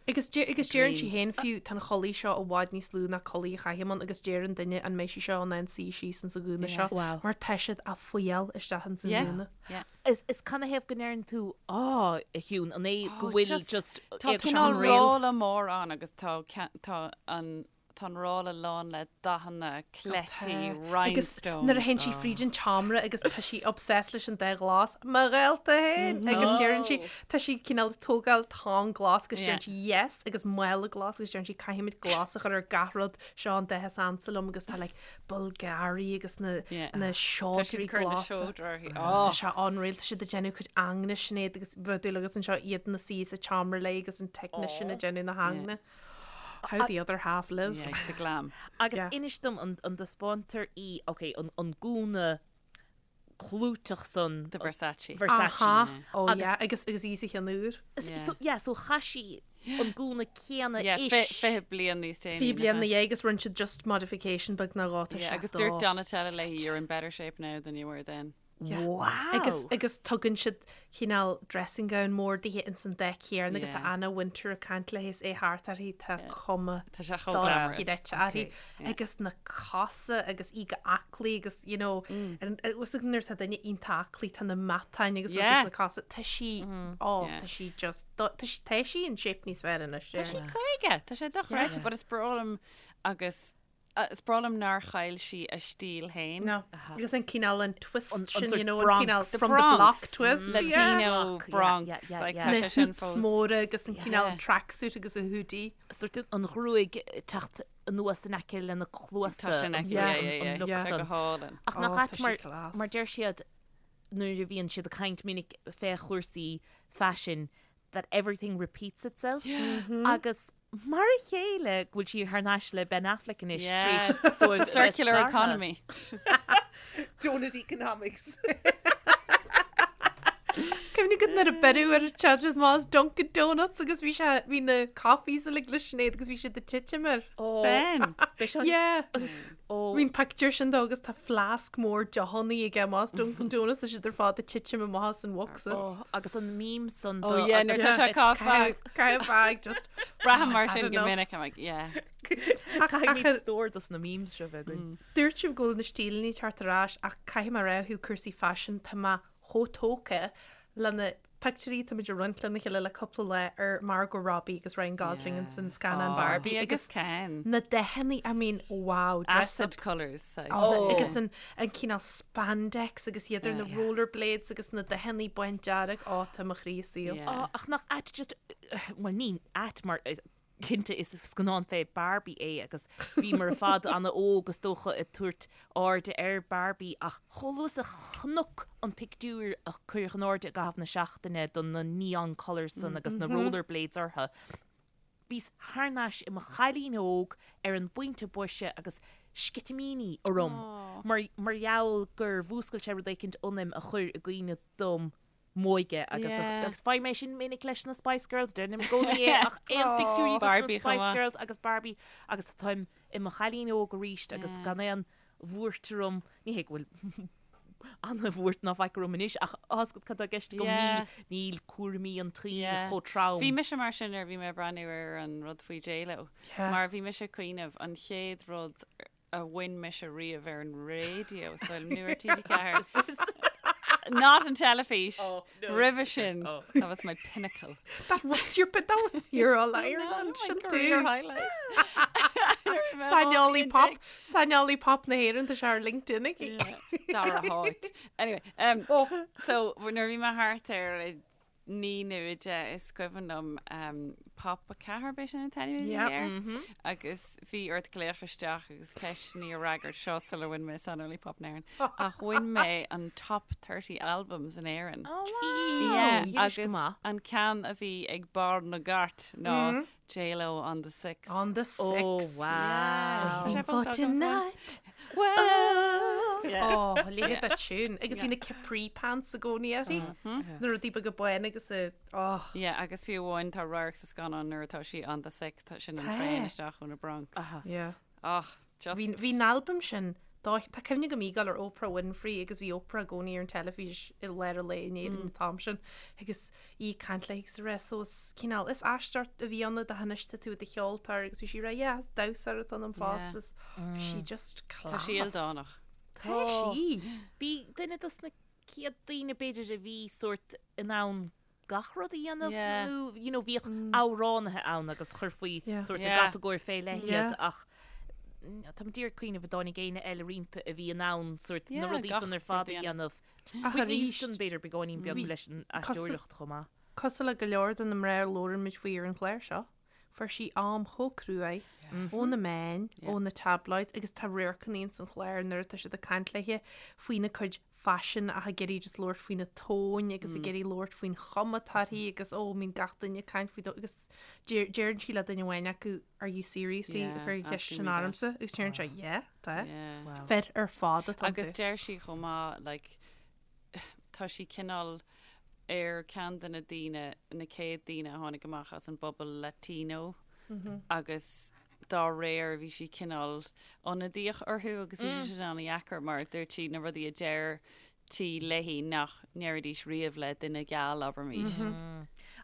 Agus agus deireann sí Dream. féin fiú, tá an chulaith seo i bhfad níos lú ná culaith a chaithim ann agus deir an duine an mbeidh sí seo in ann suí síos ins an ghúna seo Wow. mar tá siad á fuíoll isteach ins an Yeah. ghúna. Yeah. Is is canathaobh go ndeireann tú á, a Shiún, an é go Oh, bhfuil just- just Tá éagsúil cineál réal? rolla mór ann agus tá tá an. tá an rolla lán le dathanna, cleití, rhinestones. Nuair a théann sí fríd an tseomra agus tá sí obsessed leis an dath glas, mo ghaolta féin! Agus deireann sí, tá sí cineál ag tógáil tonn glas agus deireann sí yes agus mála glas agus deireann sí caithfimid glas a chur ar gach rud, seo an dath is ansa liom agus tá like Bulgari agus na na seodra glasa. Tá sé unreal, tá siad ag déanamh cuid ingne Sinéad agus bheadh dúil agat anseo iad ina suí sa tseomra léi agus an technician ag déanamh na hingne. How the other half live. Yeah, the glam. Agus inis dom an dtaispeántar í, ok, an gúna clúiteach san. The Versace. Versace. Aha, oh yeah, agus agus í sa cheann úr. So yeah, so chaith sí an gúna céanna ish. Yeah, 20 bliain níos déanaí. 20 bliain ina dhiaidh agus rinne siad just modification beag nó dhó, tá sé Yeah, agus dúirt Donatella léi, you're in better shape now than you were then. Yeah. Wow! Agus agus tugann siad cineál dressing gown mór dithe ins an dath céanna agus tá Anna Wintour ag caint léi is é thart uirthi, tá cuma Tá sé chomh glamorous. dochreidte uirthi. Agus na cosa agus í go aclaí agus you know bhfuil fhios agat nuair atá duine iontach aclaí tá na matáin agus rudaí sna cosa, tá sí, oh tá sí just, tá sí tá sí in shape níos fearr anois. Tá sí 50, tá sé dochreidte but is breá liom agus Is breá liom nár chaill sí a stíl féin. No. Agus an cineál an twist sin, you know, an cineál from the block twist. Latino Bronx. Like, tá sé sin fós. Na hoops móra agus an cineál tracksuit agus a hoodie. Sort an ghruaig ag teacht anuas in aice lena cluasa. Tá sin aici, yeah, yeah, yeah. Tá go hálainn. Ach nach ait mar, mar deir siad nuair a bhíonn siad ag caint minic fé chúrsaí faisin that everything repeats itself. Agus Mar a chéile go bhfuil sí thar n-ais le Ben Affleck anois tar éis dóibh a bheith Circular scartha. economy. Donut economics. Cuimhnigh agat nuair a beireadh ar an teacht amach as Dunkin Donuts agus bhí sé bhí na coffees uilig le Sinéad agus bhí siad ag titim air. Ben! Bhí sé Yeah. Ó. Bhí an pictiúr sin dó agus tá fleasc mór deochannaí aige amach as Dunkin Donuts tá siad ar fad ag titim amach as an bhocsa. Ó, agus an meme san Oh do yeah, nuair agus tá sé caife. Caife bag just Braithim mar sin had go enough. minic, I'm like, yeah. Caithfimid stór dos na memes seo bheith againn. Dúirt sibh go bhfuil na stíleanna ag teacht ar ais ach caithfidh mé a rá ó thaobh cúrsaí faisin tá mé chomh tógtha le na pictiúirí atá muid ag roinnt lena chéile le cúpla lá ar Margot Robbie agus Ryan Gosling ins an scannán Barbie Barbie agus Ken. na dathannaí, I mean, wow, dress Acid up. colours, saghas. Oh. Agus an, an cineál spandex agus iad ar na rollerblades agus na dathannaí bándearg, ó, tá mo chroí istigh. Yeah. Ó, ach nach ait just, bhuel ní ait mar cinnte is scannán fé Barbie é agus bhíomar ar fad ana-óg is dócha ag tabhairt airde ar Barbie ach chomh luath is a chonac an pictiúr a cuireadh in airde i gcaitheamh na seachtaine do na neon colours san agus na rollerblades orthu, bhíos thar n-ais i mo chailín óg ar an bpointe boise agus sceitimíní orm mar mar gheall gur mhúscail sé rud éicint ionaim a chuir i gcuimhne dom m'óige agus Yeah. agus faighim é sin minic leis na Spice Girls, deirim i gcónaí é ach aon phictiúirí dos na Barbie chomh Spice maith. Girls agus Barbie agus táim i mo chailín óg arís agus Yeah. gan aon bhuairt orm, ní hé go bhfuil ana-bhuairt ná faic orm anois ach tá 'fhios agat cad tá i gceist agam, Yeah. níl níl cúraimí an tsaoil Yeah. chomh trom. Bhí mise mar sin nuair a bhí mé ag breathnú ar an rud faoi J-Lo. Yeah. Mar bhí mise ag cuimhneamh an chéad rud a bhain mise riamh ar an raidió, so nó ar TG4. Not an teilifís. Oh, no. Roimhe sin, Oh. that was my pinnacle. That was your but that was your All Ireland my sin career tú. highlight. Saineolaí pop, saineolaí pop na hÉireann tá sé ar LinkedIn aici. Dara háit. Anyway, um, Oh. so nuair a bhí mé thart ar 9 nó 10 is cuimhin liom um, Pop 4 b'é sin an t-ainm a bhí Yep. air agus bhí ort glaoch isteach agus ceisteanna a fhreagairt seo sular bhain mé Saineolaí Pop na hÉireann. Ach bhain mé an top 30 albums in Éirinn. Oh, wow. Yeah, Dheinis go agus maith. an ceann a bhí ag barr na gcairt ná J-Lo on the Six. On the six. Oh, wow. Tá sé For fós agam sa bhaile. tonight. Well. Yeah. Oh, léigh that tune. Agus bhí na capri pants i gcónaí uirthi. Na rudaí beaga bána agus a oh. Yeah, agus fiú amháin tá radharc sa scannán nuair atá sí on the six, tá sin an Tá. traein isteach ó na Bronx. Yeah. Oh, just. Bhí bhí an albam sin dá tá cuimhne agam í ag gabháil ar Oprah Winfrey agus bhí Oprah i gcónaí ar an teilifís i lár an lae in Éirinn an t-am sin agus í ag caint léi agus ag rá so is cineál is aistear a bhí ann do anois tá tú i do cheoltóir agus bhí sí ag rá yeah is damhsóir atá ionam fosta is bhí sí just Tá sí class. ildánach. Tá sí. B'í duine dos na chéad daoine b'fhéidir a bhí sórt in ann gach rud a dhéanamh Yeah. nó you know bhíodh amhránaithe ann agus chuirfí Yeah. sórt i Yeah. gcatagóir fé leith Yeah. iad ach. Táim d'iarraidh cuimhneamh an dtáinig éinne eile roimpi a bhí in ann sórt na Yeah, rudaí gach san ar fad rud a a dhéanamh. Ach Whitney arís, Houston b'fhéidir beagáinín beag bhí leis an cosúil aisteoireacht chomh maith. cosúil le go leor de na mná a labhrann muid faoi ar an chlár seo, fuair sí am chomh cruaidh ó na meáin, ó na tabloids agus tá radharcanna ins an chlár nuair atá siad ag caint léithe faoina cuid faisin ach ag iarraidh just labhairt faoina tóin agus ag iarraidh labhairt faoin chuma atá uirthi agus ó bíonn gach duine ag caint faoi agus deireann sí le duine amháin acu are you seriously ag cur an cheist sin ormsa agus deireann sé yeah tá fir ar fad atá Agus deir sí chomh maith like tá sí cineál ar ceann de na daoine na céad daoine a tháinig amach as an bpobal Latino agus dá réir bhí sí cineál ionadaíoch orthu agus bhí sé sin an-dheacair mar dúirt sí na rudaí a deirtí léi nach ndéarfaidís riamh le duine geal, abraimis.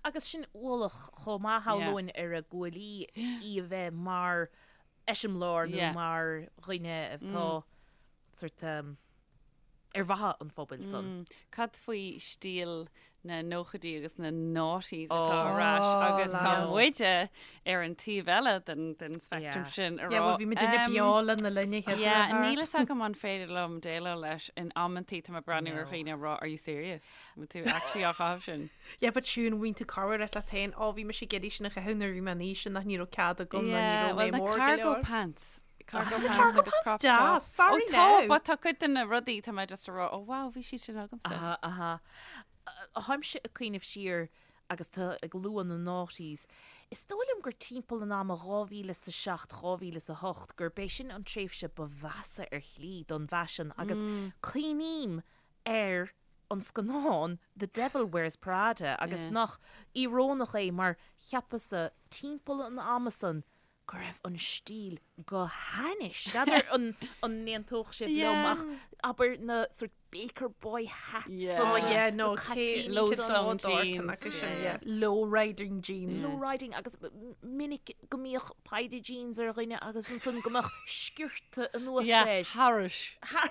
Agus sin ualach chomh maith shamhlóinn ar a guaillí í a bheith mar eiseamláir nó mar dhuine atá sort ar mhaithe an phobail san. Cad faoi stíl na nóchaidí agus na noughties atá ar ais agus tá muide ar an taobh eile den den speictream sin a Yeah, well bhí muidinne beo lena linn a chéad Yeah, níl fhios agam an féidir liom déileáil leis in amantaí tá mé ag breathnú ar dhaoine ag rá are you serious? Bhfuil tú actually á chaitheamh sin? Yeah, but siún bhíonn tú corruair ag rá leat féin, ó bhí mise ag iarraidh sin a chaitheamh nuair a bhí mé in aois sin ach ní raibh cead agam nó ní Yeah, raibh well mé na mór go cargo leor. pants. Cargo Na pants cargo agus pants crop deas, top. sorry Ó tá, now. but tá cuid de na rudaí tá mé just ag rá, oh wow, bhí siad sin agamsa. Aha, aha. Táimse ag cuimhneamh siar agus tú ag lua na noughties. Is dóigh liom gur timpeall an ama 2007, 2008 gurb é sin an tréimhse ba mheasa ar shlí don bhfaisean agus cuimhním ar an scannán The Devil Wears Prada agus nach íorónach é mar cheapas-sa timpeall an ama san go raibh an stíl go hainnis. N'fheadar an n-aontódh sibh liom ach abair na sort baker boy hats Yeah. Oh na yeah, no, caipíní Low san. slung jeans, yeah. Low riding jeans. Low riding agus minic go mbíodh paidí jeans ar dhuine agus ansan go mbeadh sciorta anuas Yeah, air. thairis.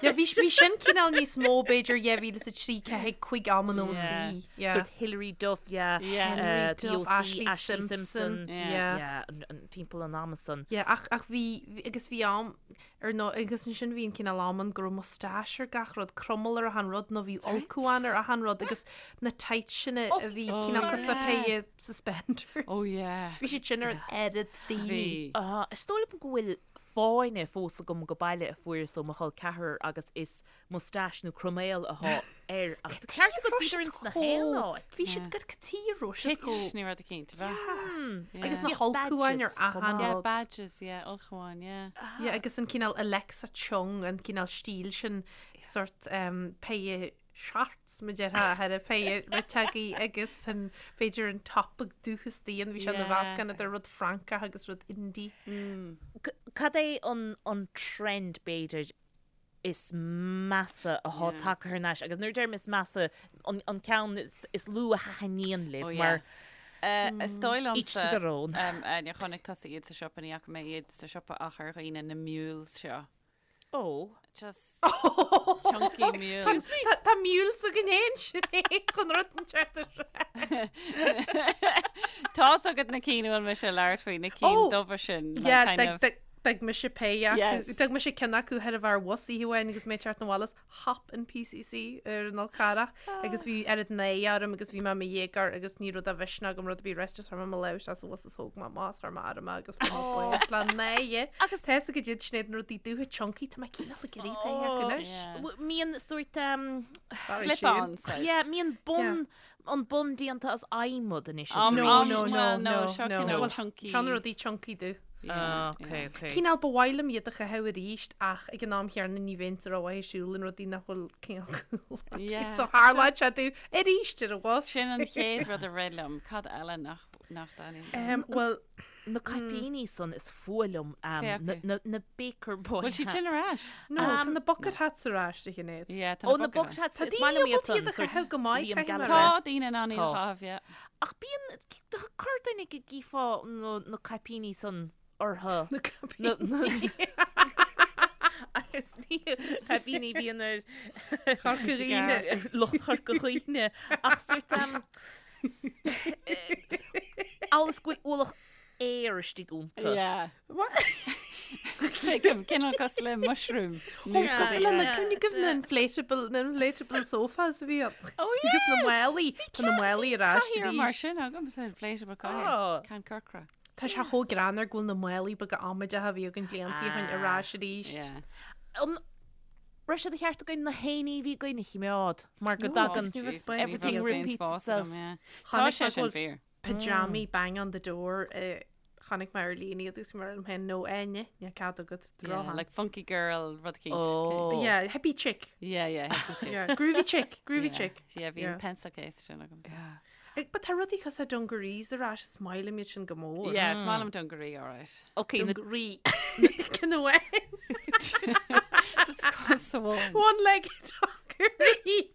Yeah, bhí bhí sin cineál níos mó b'fhéidir 2003 4 5 am an OC. Yeah. Sort Hilary Duff, yeah. Yeah. Hilary Uh, The Duff, OC, Ashlee Ashlee Simpson. Simpson. Yeah. Yeah, an, an, timpeall an ama san. Yeah, ach, ach bhí, bhí, agus bhí am, ar nó, agus ansin bhí an cineál am ann go raibh moustache ar gach rud, cromail ar achan rud, nó bhí ulchabhán ar achan rud, agus na tights sin a a bhí Oh, cineál cosúil le yeah. péire suspenders. Oh yeah. Bhí siad sin ar an oiread daoine. Bhí. Uh, is dóigh liom go bhfuil fáinne fós agam go baile a fuaireas ó mo chol ceathrar agus is moustache nó croiméal athá air ach tá ceart agat bhíodar ins na haon áit. Bhí siad go cad a raibh siad Kitsch nó rud eicínt, ab ea? Agus na hulchabháin ar achan Yeah, rud. badges, yeah, ulchabháin, yeah. Yeah, agus an cineál Alexa Chung, an cineál stíl sin, sort péire shorts, mar a déarfá, thar a péire riteagaí agus an, b'fhéidir an top ag dúchas daon, bhí sé ina mheascán idir rud Francach agus rud indie. Cad é an trend, b'fhéidir, is measa athá tagtha thar n-ais agus nuair a deirim is measa an ceann is lú a thaitníonn libh mar Is dóigh each to liomsa their own. Áine, chonaic tusa iad sa siopa, ní fhaca mé iad sa siopa ach ar dhaoine na mules seo. Ó. Just chunky mules. Tá mules againn fhéin sin é chun rud an ceart a rá. Tá's agat na cinn a bhfuil mise ag labhairt faoi, na cinn dubha sin. like Yeah, kind of- D'fhág mise péire acu. Yes. D'fhág mise ceann acu thoir a bheith ar bhus oíche amháin agus mé ag teacht 'na bhaile as Hop in PCC ar an Fhol Carrach agus bhí oiread náire orm agus bhí mé i mo dhéagóir agus ní raibh de mhisneach agam rud ar bith a rá just chuir mé mo lámh isteach sa bhus is thóg mé amach is chuir mé orm é agus fuair mé bás le náire. Agus- Tá fhios agat iad Sinéad na rudaí dubha chunky tá mé cineál ag iarraidh péire acu anois. Yeah. Mbíonn sórt um, Sorry, Slip-on Siún. saghas. yeah, mbíonn bun an bun déanta as adhmad anois is Um, No, um, no, no, well, no, no, seo no. cineál Well, chunky. Seo na rudaí chunky dubh. Ah, ok, ok. Cineál ba mhaith liom iad a chaitheamh arís ach ag an am chéanna ní bheinn sa rómhaith ag siúl in rudaí nach bhfuil cineál cool acu. Yeah, So tharlódh sé domh arís ar an bhus. Sin an chéad rud a rith liom. Cad eile nach nach dtaitníonn? Um, well, Na caipíní san is fuath liom Cé um, acu? na, na, na Baker Boy Bhfuil siad sin ar ais? no, tá na bucket hats ar ais a Shinéad. Yeah, tá Ó, na bucket hats, Tá is maith liom daoine iad ábalta iad san, a sort chaitheamh go maith, Liam caithfidh mé a Gallagher. rá. Tá daoine in ann iad a Tá. chaitheamh, yeah. Ach bíonn, corrduine go gcífeá na, na caipíní san orthu. Na Na, caipíní. Agus ní caipíní bíonn ar Chorca Dhuibhne. lucht Chorca Dhuibhne. Ach sort um, Amhail is go bhfuil ualach aeir istigh iontu. Yeah. What? Tuigim, cineál cosúil le mushroom. Ó, cosúil le na cuimhne agaibh na inflatable, na inflatable sofas a bhí ann. Oh yeah! Agus na málaí, tá na málaí ar ais Cathaoir arís. mar sin agamsa, inflatable cathaoir. Ceann corcra. Tá sé chomh greannmhar go bhfuil na málaí beaga amaideacha a bhí againn blianta ó shin ar ais arís. Yeah. An raibh sé de cheart againn na héinní a bhí againn a chimeád mar go dtagann everything repeats itself. Tá sé sin fíor. Pyjamaí bang on the door chonaic mé ar líne iad agus mar liom féin no Áine níl cead agat Yeah, like funky girl rud eicínt. Oh. Yeah, hippie chick. Yeah, yeah, hippie chick. Yeah, groovy chick, groovy Yeah. chick. Yeah, bhí Yeah. an pencil case sin agamsa. Yeah. Ag, but tá rudaí cosúil le dungarees ar ais is maith liom iad sin go mór. Yeah, is maith liom dungaree, all right. Okay, na Dungaree. Ceann amháin. Just cos amháin. One leg dungaree.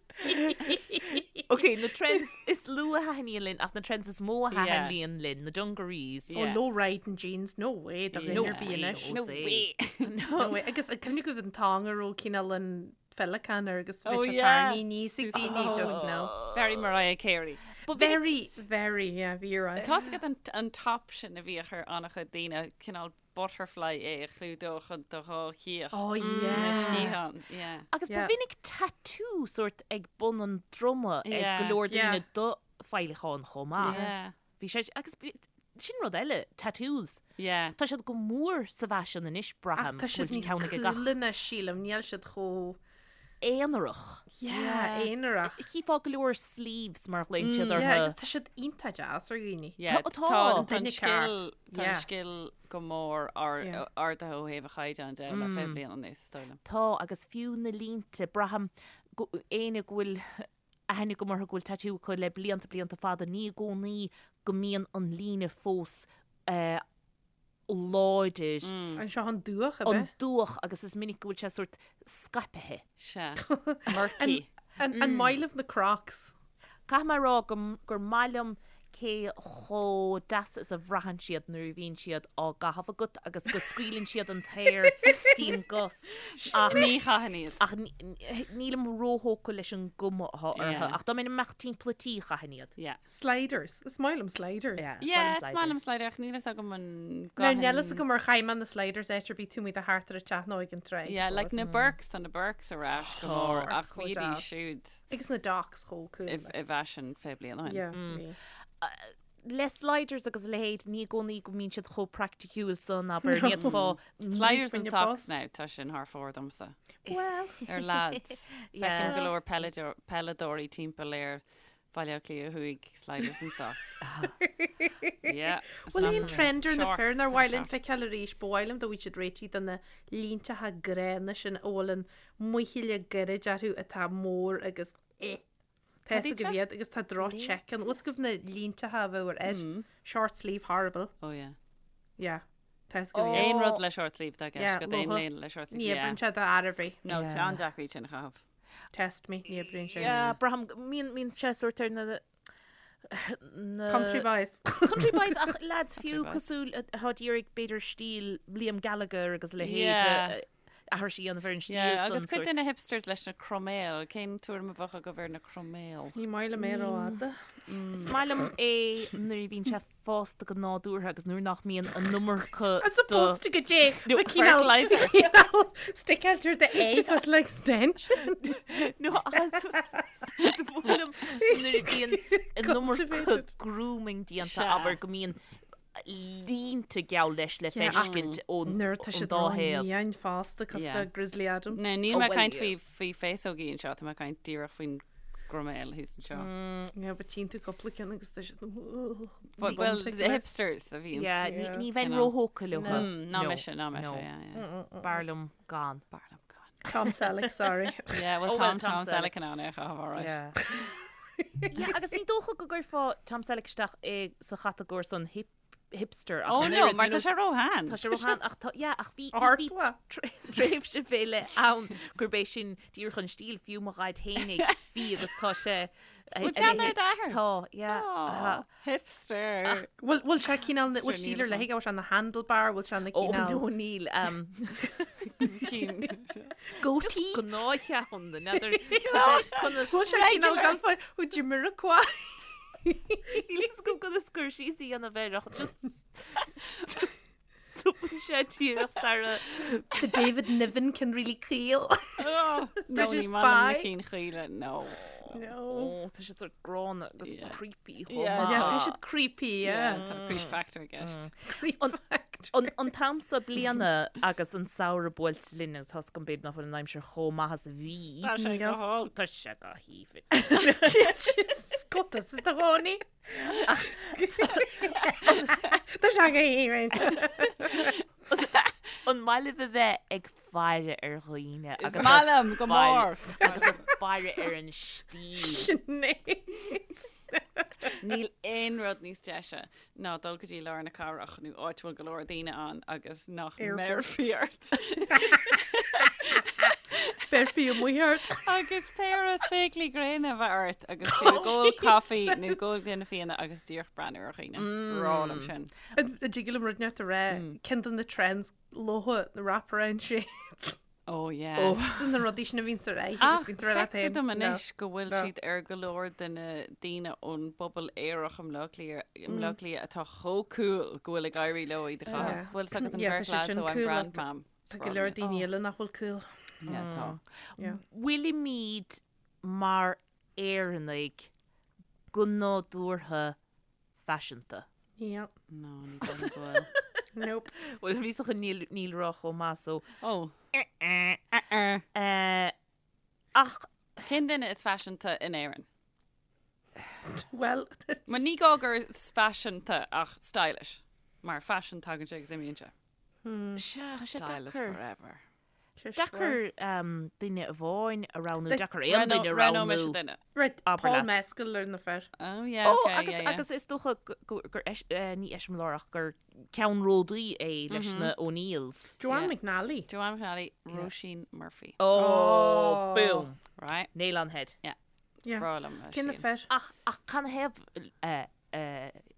Ok, na trends is lú a thaitníonn linn ach na trends is mó a thaitníonn linn, na dungarees. Oh, Yeah. low riding jeans, no way, do No dhuine ar bith way, anois. No way. No way. Agus an cuimhin agaibh an t-am a raibh cineál an féileacán air agus Oh, bhí sé yeah. tarraingthe aníos ag daoine just no. Very Mariah Carey. But bhí Very, very, yeah, bhí ar aghaidh. Tá's agat an, an top sin a bhíodh ar an-chuid daoine, cineál butterfly é a chlúdódh an do dhá chíoch. Oh, Na yeah. sciathán, yeah. Agus ba Yeah. mhinic tattoo sórt ag bun an droma ag Yeah. go leor Yeah. daoine do féileacáin chomh maith. Yeah. Bhí sé, agus bhí- sin rud eile, tattoos. Yeah. Tá siad go mór sa bhfaisean anois, Ach braithim, tá go siad bhfuil níos ceann ag gach cúla anois, sílim, níl siad chomh aonarach. Yeah, aonarach. Chífeá go leor sleeves mar a ghlaonn siad Yeah, orthu. agus tá siad iontach deas ar dhaoine. Yeah, Tá- tá tá. tá an Duine scil ceart. tá an Yeah. scil go mór ar Yeah. ardaithe ó thaobh a chaighdeán de le 20 bliain anuas, is dóigh liom. Tá, agus fiú na línte, braithim go éinne go bhfuil aithne agam orthu go bhfuil tattoo acu le blianta blianta fada, ní i gcónaí go mbíonn an líne fós eh, láidir, An seo an dúch ab an ea? dúch agus is minic go bhfuil sé sórt scaipthe. Sea. Murky. An an maith libh na Crocs? Caithfidh mé a rá go gur maith liom cé chomh deas is a bhraitheann siad nuair a bhíonn siad á gcaitheamh agat agus go scaoileann siad an t-aer dtí'n gcos ach Ní chaithfinn iad. ach nílim róthógtha leis an gcuma atá orthu Yeah. ach dá mbeinn ag imeacht timpeall an tí chaithfinn iad. Yeah. Sliders. Is maith liom sliders. Yeah, is Yeah, maith is liom maith liom slider ach níl fhios agam an Now níl fhios agam ar chaith mé na sliders áit ar bith tú muid a thart ar an teach nó ag an tráigh. Yeah, like na Birks, tá na Birks ar ais go mór Birks ach chomh bhíodís deas. siúd Agus na Docs chomh cool. i i bhfaisean 20 bliain ó shin. Yeah, bhí. Le sliders agus a leithéid ní i gcónaí go mbíonn siad chomh praiticiúil san abair ní fhéadfá Sliders and When you're socks boss. now, tá sin thar fóir domsa. Well, Ar lads. Yeah. Feicim go leor peileadóir- peileadóirí timpeall ar Bhaile Átha Cliath Thuaidh, sliders and socks. Yeah. it's Bhfuil not aon for me. trend ar na Shorts, fir nár kind of mhaith linn shorts. feiceáil arís, ba mhaith liom dá bhfuil siad réitithe do na línteacha gránna sin a bhfuil an muichille gairid orthu atá mór agus eh. Tá Cad fhios iad agaibh seo? iad agus tá droch check ann. Bhfuil fhios agaibh na línteacha a bheadh ar fhir? Short sleeve horrible. Oh yeah. Yeah. Tá fhios agaibh iad. Aon rud le short sleeve tá Yeah, ceist go aon lofa. léine le short sleeve. Ní Yeah. oibríonn sé do fhear ar bith. No, Yeah. tá an-deacair iad sin a chaitheamh. Test me, ní oibríonn sé. Yeah, braithim mbíonn mbíonn sé sórt ar na na Country boys. Country boys ach lads fiú boys. cosúil atá ag iarraidh b'fhéidir stíl Liam Gallagher agus a leithéid Yeah. aithris a dhéanamh ar an stíl Yeah, san agus cuid sórt. de na hipsters leis na croiméil, cén tuairim a bheadh agaibh ar na croiméil? Ní maith liom é rófhada. Is maith liom é nuair a bhíonn sé fásta go nádúrtha agus nuair nach mbíonn an iomarca As opposed to go dté No, fertilizer. Stick out the egg with like extension. No, ach is is maith liom nuair a bhíonn an iomarca Cultivated. grooming déanta Sea. abair go mbíonn línte geall leis le Yeah, ach feiscint ón Nuair tá ón siad dá thaobh. rómhion fosta cosúil Yeah. le Grizzly Adams. No, níl Oh, mé well, caint yeah. faoi faoi féasógaí anseo, tá mé caint díreach faoin gcroiméal thuas anseo. Yeah, but tchíonn tú cúpla ceann agus tá siad But, well, the hipsters a bhíonn. Yeah, Yeah. ní bheinn You know. róthógtha leo. Mm, ná No, mise, ná mise, no. yeah, yeah. B'fhearr liom gan. B'fhearr liom gan. Tom Selleck, sorry. Yeah, well, Oh, Tom, well, Tom Tom Selleck. Selleck in ann é a chaitheamh, all right. Yeah. Yeah, agus ní dócha go gcuirfeá Tom Selleck isteach i sa chatagóir san hip hipster ach Oh an no, oiread, mar you tá know, sé róshean. Tá sé róshean ach tá yeah, ach bhí Art bhí wa. tréimhse fé leith ann gurb é sin díreach an stíl fiú mo dhaid fhéinig bhí agus tá sé Bhfuil ceann ar d'athair? Tá, yeah. Aw, hipster. Bhfuil bhfuil sé cineál bhfuil Sure, stíl níl ar leith aige, bhfuil sé na handlebar, bhfuil sé na Ó cineál no níl um, Cinn. goatee? gnáthcheann n'fheadar conas Bhfuil sé cineál gan fá ó Jamiroquai? Níl fhios agam conas cur síos a dhéanamh air ach just just Stopann sé díreach sara. The David Niven ceann really caol. No, British ní maith liom na Spy. cinn chaola, no. No. Ó, tá siad sort gránna agus Yeah. creepy chomh Yeah, maith. Yeah, tá siad creepy, yeah. Yeah, tá creep factor i gceist. Creep factor. An, an t-am seo bliana agus an samhradh buailte linn agus tá 's agam b'fhéidir nach bhfuil an aimsir chomh maith is a bhí. Tá sé go holc. Tá sé go haoibhinn. Scota sa do chónaí. Tá sé go haoibhinn. An maith libh a bheith ag faire ar dhaoine Is agus maith liom go mór. agus ag faire ar an stíl. Sinéad. Níl aon rud níos deise ná dul go dtí lár na cathrach nó áit a bhfuil go leor daoine ann agus nach mbéarfaí ort. Béarfaí amuigh ort. Agus péire spéaclaí gréine a bheith ort agus tú ag ól caife nó ag ól gloine fíona agus díreach breathnú ar dhaoine. Is breá liom sin. An dtig liom rud inteacht a rá, ceann de na trends leo na wraparound shades. Oh yeah. Sin na rudaí sin a bhíonn ar aghaidh Ach agus bíonn tú ar leat feictear féin. dom No. anois go bhfuil No. siad ar go leor de na daoine ón bpobal aerach i mBleá Cliath, i mBleá Cliath atá chomh cool go bhfuil ag éirí leo iad a chaitheamh. Yeah. Bhfuil 's agat an Yeah, tá bheirt siad lads sin ó I'm cool Grand ach Mam. Tá go leor daoine eile nach bhfuil cool. Yeah, tá. Yeah. Bhfuilimid mar Éireannaigh go nádúrtha faiseanta? Yep. No, ní dóigh liom go bhfuil. Nope. Bhuel, bhí sa níl níl rá chomh maith so. Oh. Eh, ach Cén duine is faiseanta in Éirinn? Well, Ma ní gá gur faiseanta ach stylish. Mar fashion tagann sé agus imíonn sé. sea, tá sé Style is deacair. forever. Deacair duine amháin a roghnú, deacair aon duine a Roghnóidh mise roghnú. duine. Right, Abair Paul leat. Mescal ar na fir. Oh yeah, Ó, okay, agus yeah, yeah. agus is dócha gur ní eiseamláir ach gur ceannródaí é leis na O'Neills. Joanne Yeah. McNally. Joanne McNally, Róisín Murphy. Oh, boom. Right? Nail on head. Yeah. Yeah. Is breá liom a Cé na stíl. fir? Ach ach canathaobh a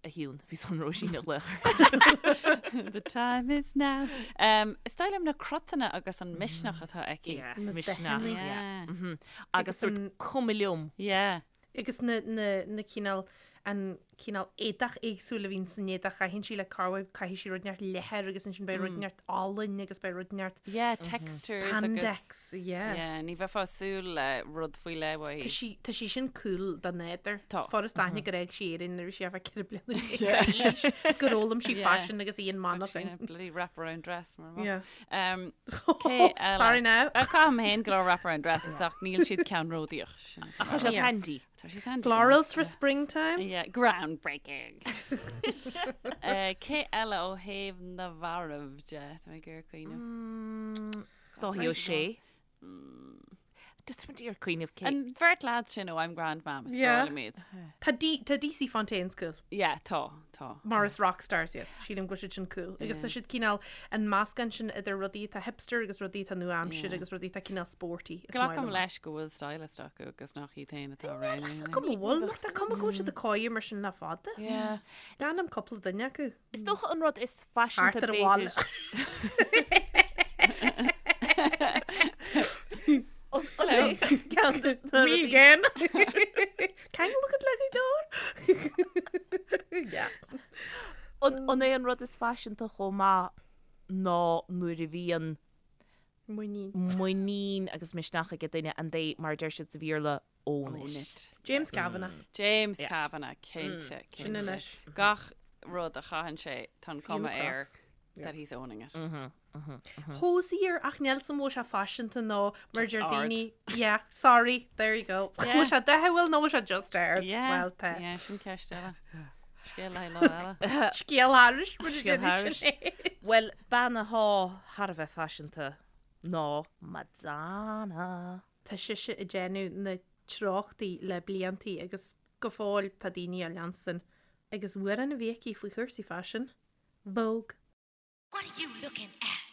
Shiún, bhí chun Róisín a ghlaoch. The time is now. Um, is dóigh liom na cruthanna agus an misneach atá aici. Yeah, Na misneach. dathanna. Yeah. Yeah. Mhm. Agus sort an- cuma liom. Yeah. Agus na, na, na cineál, an cineál éadach éagsúil a bhíonn san éadach a chaitheann sí le corruair, caithfidh sí rud inteacht leathair agus ansin beidh rud inteacht olainn agus beidh rud inteacht Yeah, textures agus spandex, yeah. Yeah, ní bheifeá ag súil le rud faoi leith Tá uaithi. sí, tá sí sin cool dá nádúr. Tá. Is furast aithne gur fhág sí Éirinn nuair a bhí sí thart fá 14 bliana d'aois. Is gur fhoghlaim sí Yeah. faisean agus í in Fuck, sin Manchain. a bloody wraparound dress mar Yeah. Um, cé eile? Sorry now. Uh, Caithim féin go leor wraparound dresses ach níl siad ceannródaíoch. Sin atá Ach tá siad Yeah. handy. Tá siad handy. Florals for springtime. Yeah, groundbreaking. uh, cé eile ó thaobh na bhfear de Tá mé ag iarraidh cuimhneamh. Dáithí Ó Sé. Just ag iarraidh cuimhneamh cé. An bheirt lad sin ó I'm Grand Mam is Yeah. breá liom iad. Tá D, tá DC Fontaine's cool. Yeah, tá, tá. Mar is rock stars iad. Sílim go bhfuil siad sin cool. Agus tá siad cineál an meascán sin idir rudaí atá hipster agus rudaí atá nua-aimseartha Yeah. agus rudaí atá cineál sporty. Is maith Glacaim liom. leis go bhfuil stylist acu agus nach iad féin atá Níl a fhios agam an bhfuil, mar tá cuma go bhfuil siad ag caitheamh mar sin le fada. Yeah. D'ainm cúpla duine acu. Is dócha an rud is faiseanta Thart ar an bhaile. b'fhéidir. Ceann de na Me rudaí- again. Can you look at Lady Door? Yeah. An an é an rud is faiseanta chomh maith ná nuair a bhíonn Muinín. muinín agus misneach ag duine and they mar a deir siad sa Bhéarla own Own it. it. James Kavanagh. James Yeah. Kavanagh, cinnte, Sin cinnte. anois. Gach rud a chaitheann sé tá an cuma na air Crocs. that he's owning it. Hozier ach níl 's a'm an bhfuil sé faiseanta nó mar Just deir ard. daoine yeah sorry there you go Yeah. Bhfuil sé dathúil nó bhfuil sé just ard Yeah. Well tá Yeah, sin ceist eile. Scéal le haghaidh lá eile. Scéal thairis mar a Scéal deir thairis. Sinéad. Bhuel, bean atá thar a bheith faiseanta ná Madonna. Tá sise ag déanamh na treochtaí le bliantaí agus go fóill tá daoine á leanstan agus amhrán a bhí aici faoi chúrsaí faisin, Vogue. What are you looking at?